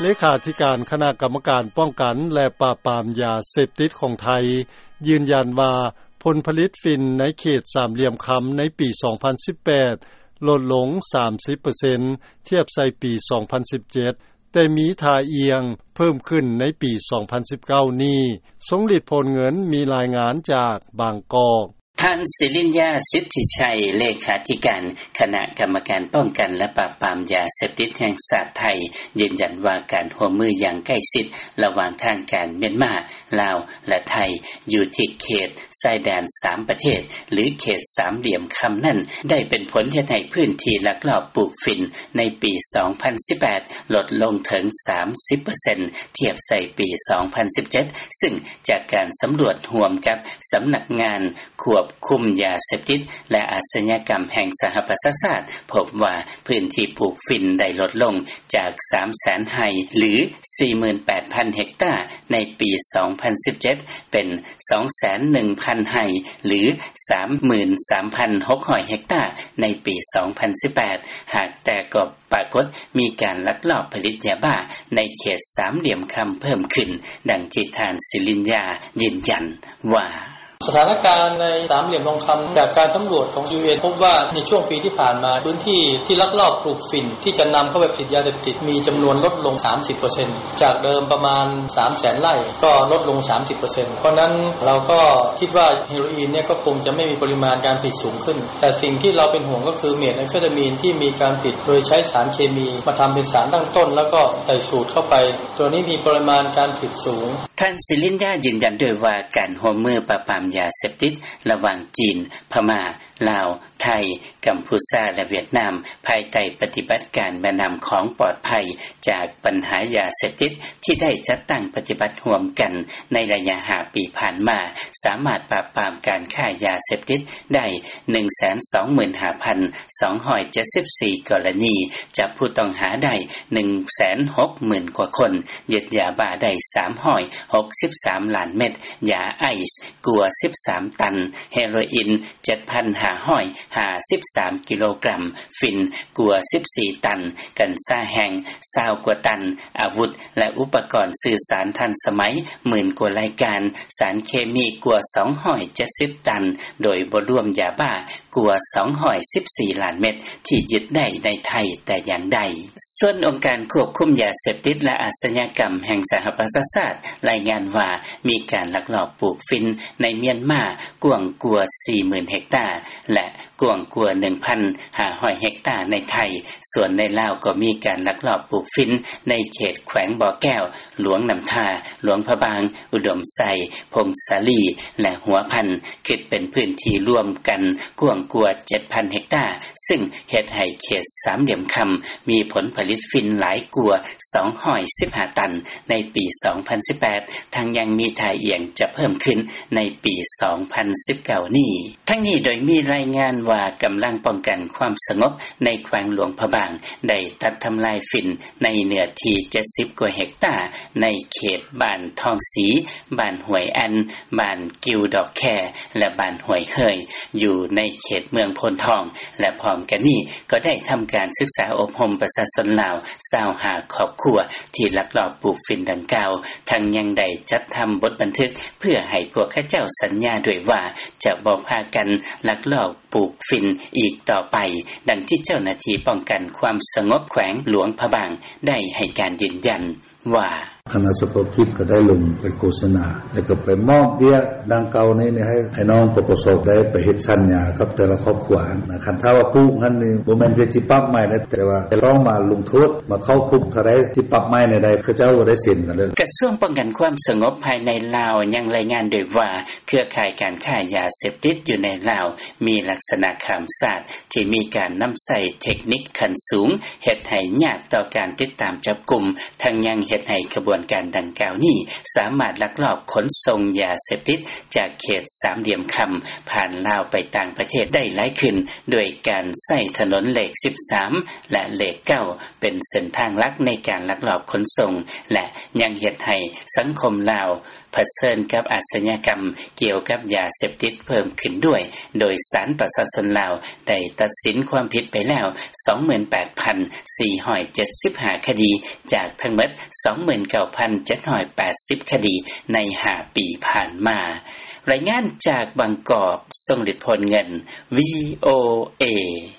ເລຂາທິການຄະນະກຳມະການປ້ອງກັນ ແລະ ປາບປາມຢາເສບຕິດຂອງໄທ ຢືນຢັນວ່າ ຜົນຜະລິດຝິ່ນໃນເຂດສາມຫຼ່ຽມຄຳໃນປີສອງພັນສິບແປດ ລົດລົງສາມສິບເປີເຊັນ ທຽບໃສ່ປີສອງພັນສິບເຈັດ ແຕ່ມີທ່າອ່ຽງເພີ່ມຂຶ້ນໃນປີສອງພັນສິບເກົ້ານີ້. ຊົງຫຼີດ ໂພນເງິນ ມີລາຍງານຈາກບາງກອກ. ທ່ານ ສິລິນຍາ ສິດທິໄຊ ເລຂາທິການຄະນະກຳມະການປ້ອງກັນ ແລະ ປາບປາມຢາເສບຕິດແຫ່ງຊາດໄທ ຢືນຢັນວ່າ ການຮ່ວມມືຢ່າງໃກ້ຊິດລະຫວ່າງທາງການມຽນມາ, ລາວ ແລະ ໄທ ຢູ່ທີ່ເຂດຊາຍແດນສາມປະເທດ ຫຼື ເຂດສາມຫຼ່ຽມຄຳນັ້ນ ໄດ້ເປັນຜົນເຮັດໃຫ້ພື້ນທີ່ລັກລອບປູກຝິ່ນໃນປີສອງພັນສິບແປດ ລົດລົງເຖິງສາມສິບເປີເຊັນ ທຽບໃສ່ປີສອງພັນສິບເຈັດ ຊຶ່ງຈາກການສຳຫຼວດຮ່ວມກັບສຳນັກງານຄວບຄຸມຢາເສບຕິດ ແລະ ອາຊະຍາກຳແຫ່ງສະຫະປະຊາຊາດ ພົບວ່າພື້ນທີ່ປູກຝິ່ນໄດ້ລົດລົງຈາກສາມແສນໄຮ່ ຫຼື ສີ່ໝື່ນແປດພັນເຮັກຕາ ໃນປີສອງພັນສິບເຈັດ ເປັນສອງແສນໜຶ່ງພັນໄຮ່ ຫຼື ສາມໝື່ນສາມພັນຫົກຮ້ອຍເຮັກຕາ ໃນປີສອງພັນສິບແປດ ຫາກແຕ່ກໍປາກົດມີການລັກລອບຜະລິດຢາບ້າໃນເຂດສາມຫຼ່ຽມຄຳເພີ່ມຂຶ້ນ, ດັ່ງທີ່ທ່ານ ສິລິນຍາ ຢືນຢັນວ່າ: ສະຖານະການໃນສາມຫຼ່ຽມທອງຄຳ ຈາກການສຳຫຼວດຂອງ ຢູເອັນ ພົບວ່າໃນຊ່ວງປີທີ່ຜ່ານມາ ພື້ນທີ່ທີ່ລັກລອບປູກຝິ່ນທີ່ຈະນຳເຂົ້າໄປຜະລິດຢາເສບຕິດ ມີຈຳນວນລົດລົງສາມສິບເປີເຊັນ ຈາກເດີມປະມານສາມແສນໄຮ່ ກໍລົດລົງສາມສິບເປີເຊັນ. ເພາະນັ້ນເຮົາກໍຄິດວ່າເຮໂຣອີນເນຍກໍຄົງຈະໄມ່ມີປະລິມານການຜະລິດສູງຂຶ້ນ, ແຕ່ສິ່ງທີ່ເຮົາເປັນຫ່ວງກໍຄືເມດແອມເຟຕາມີນທີ່ມີການຜະລິດໂດຍໃຊ້ສານເຄມີມາທຳເປັນສານຕັ້ງຕົ້ນ ແລ້ວກໍໃສ່ສູດເຂົ້າໄປ, ຕົວນີ້ມີປະລິມານການຜະລິດສູງ. ທ່ານ ສິລິນຍາ ຢືນຢັນດ້ວຍວ່າ ການຮ່ວມມືປາບປາມຢາເສບຕິດລະຫວ່າງຈີນ, ພະມ້າ, ລາວ, ໄທ, ກຳພູຊາ ແລະ ຫວຽດນາມ ພາຍໃຕ້ປະຕິບັດການແມ່ນ້ຳຂອງປອດໄພຈາກບັນຫາຢາເສບຕິດ ທີ່ໄດ້ຈັດຕັ້ງປະຕິບັດຮ່ວມກັນໃນໄລຍະຫ້າປີຜ່ານມາ ສາມາດປາບປາມການຄ້າຢາເສບຕິດໄດ້ໜຶ່ງແສນສອງໝື່ນຫ້າພັນສອງຮ້ອຍເຈັດສິບສີ່ກໍລະນີ, ຈັບຜູ້ຕ້ອງຫາໄດ້ໜຶ່ງແສນຫົກໝື່ນກວ່າຄົນ, ຍຶດຢາບ້າໄດ້ສາມຮ້ອຍຫົກສິບສາມລ້ານເມັດ, ຢາໄອສ໌ກວ່າສິບສາມຕັນ, ເຮໂຣອີນ ເຈັດພັນຫ້າຮ້ອຍຫ້າສິບສາມກິໂລກຣາມ, ຝິ່ນກວ່າສິບສີ່ຕັນ, ກັນຊາແຫ້ງຊາວກວ່າຕັນ, ອາວຸດ ແລະ ອຸປະກອນສື່ສານທັນສະໄໝໝື່ນກວ່າລາຍການ, ສານເຄມີກວ່າສອງຮ້ອຍເຈັດສິບຕັນ, ໂດຍບໍ່ລວມຢາບ້າກວ່າສອງຮ້ອຍສິບສີ່ລ້ານເມັດ ທີ່ຍຶດໄດ້ໃນໄທແຕ່ຢ່າງໃດ. ສ່ວນອົງການຄວບຄຸມຢາເສບຕິດ ແລະ ອາຊະຍາກຳແຫ່ງສະຫະປະຊາຊາດ ລາຍງານວ່າ ມີການລັກລອບປູກຝິ່ນໃນມຽນມາກວ້າງກວ່າສີ່ໝື່ນເຮັກຕາ ແລະ ກວ້າງກວ່າໜຶ່ງພັນຫ້າຮ້ອຍເຮັກຕາໃນໄທ, ສ່ວນໃນລາວກໍມີການລັກລອບປູກຝິ່ນໃນເຂດແຂວງບໍ່ແກ້ວ, ຫຼວງນ້ຳທາ, ຫຼວງພະບາງ, ອຸດົມໄຊ, ຜົ້ງສາລີ ແລະ ຫົວພັນ, ຄິດເປັນພື້ນທີ່ລວມກັນກວ້າງກວ່າເຈັດພັນເຮັກຕາ, ຊຶ່ງເຮັດໃຫ້ເຂດສາມຫຼ່ຽມຄຳມີຜົນຜະລິດຝິ່ນຫຼາຍກວ່າສອງຮ້ອຍສິບຫ້າຕັນໃນປີສອງພັນສິບແປດ, ທັງຍັງມີທ່າອ່ຽງຈະເພີ່ມຂຶ້ນໃນປີສອງພັນສິບເກົ້ານີ້. ທັງນີ້ໂດຍມີລາຍງານວ່າ ກຳລັງປ້ອງກັນຄວາມສະຫງົບໃນແຂວງຫຼວງພະບາງ ໄດ້ຕັດທຳລາຍຝິ່ນໃນເນື້ອທີ່ເຈັດສິບກວ່າເຮັກຕາ ໃນເຂດບ້ານທອງສີ, ບ້ານຫ້ວຍອັນ, ບ້ານກິວດອກແຄ ແລະ ບ້ານຫ້ວຍເຮີຍ ຢູ່ໃນເຂດເມືອງໂພນທອງ ແລະ ພ້ອມກັນນີ້ກໍໄດ້ທຳການສຶກສາອົບຮົມປະຊາຊົນລາວຊາວຫ້າຄອບຄົວທີ່ລັກລອບປູກຝິ່ນດັ່ງກ່າວ, ທັງຍັງໄດ້ຈັດທຳບົດບັນທຶກ ເພື່ອໃຫ້ພວກເຂົາເຈົ້າສັນຍາດ້ວຍວ່າ ຈະບໍ່ພາກັນລັກລອບປູກຝິ່ນອີກຕໍ່ໄປ, ດັ່ງທີ່ເຈົ້າໜ້າທີ່ປ້ອງກັນຄວາມສະຫງົບແຂວງຫຼວງພະບາງໄດ້ໃຫ້ການຢືນຢັນວ່າ: ຄະນະສະເພາະກິດກໍໄດ້ລົງໄປໂຄສະນາ ແລ້ວກໍໄປມອບເບ້ຍດັ່ງກ່າວນີ້ໃຫ້ ໃຫ້ນ້ອງ ປກສ ໄດ້ໄປເຮັດສັນຍາກັບແຕ່ລະຄອບຄົວຫັ້ນນະ, ຄັນຖ້າວ່າປູກຫັ້ນນີ້ ບໍ່ແມ່ນແຕ່ຊິປັບໃໝໄດ້ ແຕ່ວ່າຕ້ອງມາລົງໂທດ ມາເຂົ້າຄຸກເທົ່າໃດ ຊິປັບໃໝແນວໃດ ເຂົາເຈົ້າບໍ່ໄດ້ເຊັນກັນເລີຍ. ກະຊວງປ້ອງກັນຄວາມສະຫງົບພາຍໃນລາວຍັງລາຍງານດ້ວຍວ່າ ເຄືອຂ່າຍການຄ້າຢາເສບຕິດຢູ່ໃນລາວມີລັກສະນະຂ້າມຊາດ ທີ່ມີການນຳໃຊ້ເທັກນິກຂັ້ນສູງ ເຮັດໃຫ້ຍາກຕໍ່ການຕິດຕາມຈັບກຸມ, ທັງຍັງເຮັດໃຫ້ຂະບວນການດັ່ງກ່າວນີ້ ສາມາດລັກລອບຂົນສົ່ງຢາເສບຕິດຈາກເຂດສາມຫຼ່ຽມຄຳ ຜ່ານລາວໄປຕ່າງປະເທດໄດ້ຫຼາຍຂຶ້ນ ດ້ວຍການໃຊ້ຖະໜົນເລກສິບສາມ ແລະ ເລກເກົ້າ ເປັນເສັ້ນທາງຫຼັກໃນການລັກລອບຂົນສົ່ງ ແລະ ຍັງເຮັດໃຫ້ສັງຄົມລາວ ຜະເຊີນກັບອາຊຍາກັມກ່ຽວກັບຢາເສບຕິດເພີ່ມຂຶ້ນດ້ວຍ, ໂດຍສານປະຊາຊົນລາວໄດ້ຕັດສິນຄວາມຜິດໄປແລ້ວ ສອງໝື່ນແປດພັນສີ່ຮ້ອຍເຈັດສິບຫ້າຄະດີ ຈາກທັງໝົດ ສອງໝື່ນເກົ້າພັນເຈັດຮ້ອຍແປດສິບຄະດີໃນຫ້າປີຜ່ານມາ. ລາຍງານຈາກບາງກອກ, ຊົງລິດ ໂພນເງິນ ວີໂອເອ.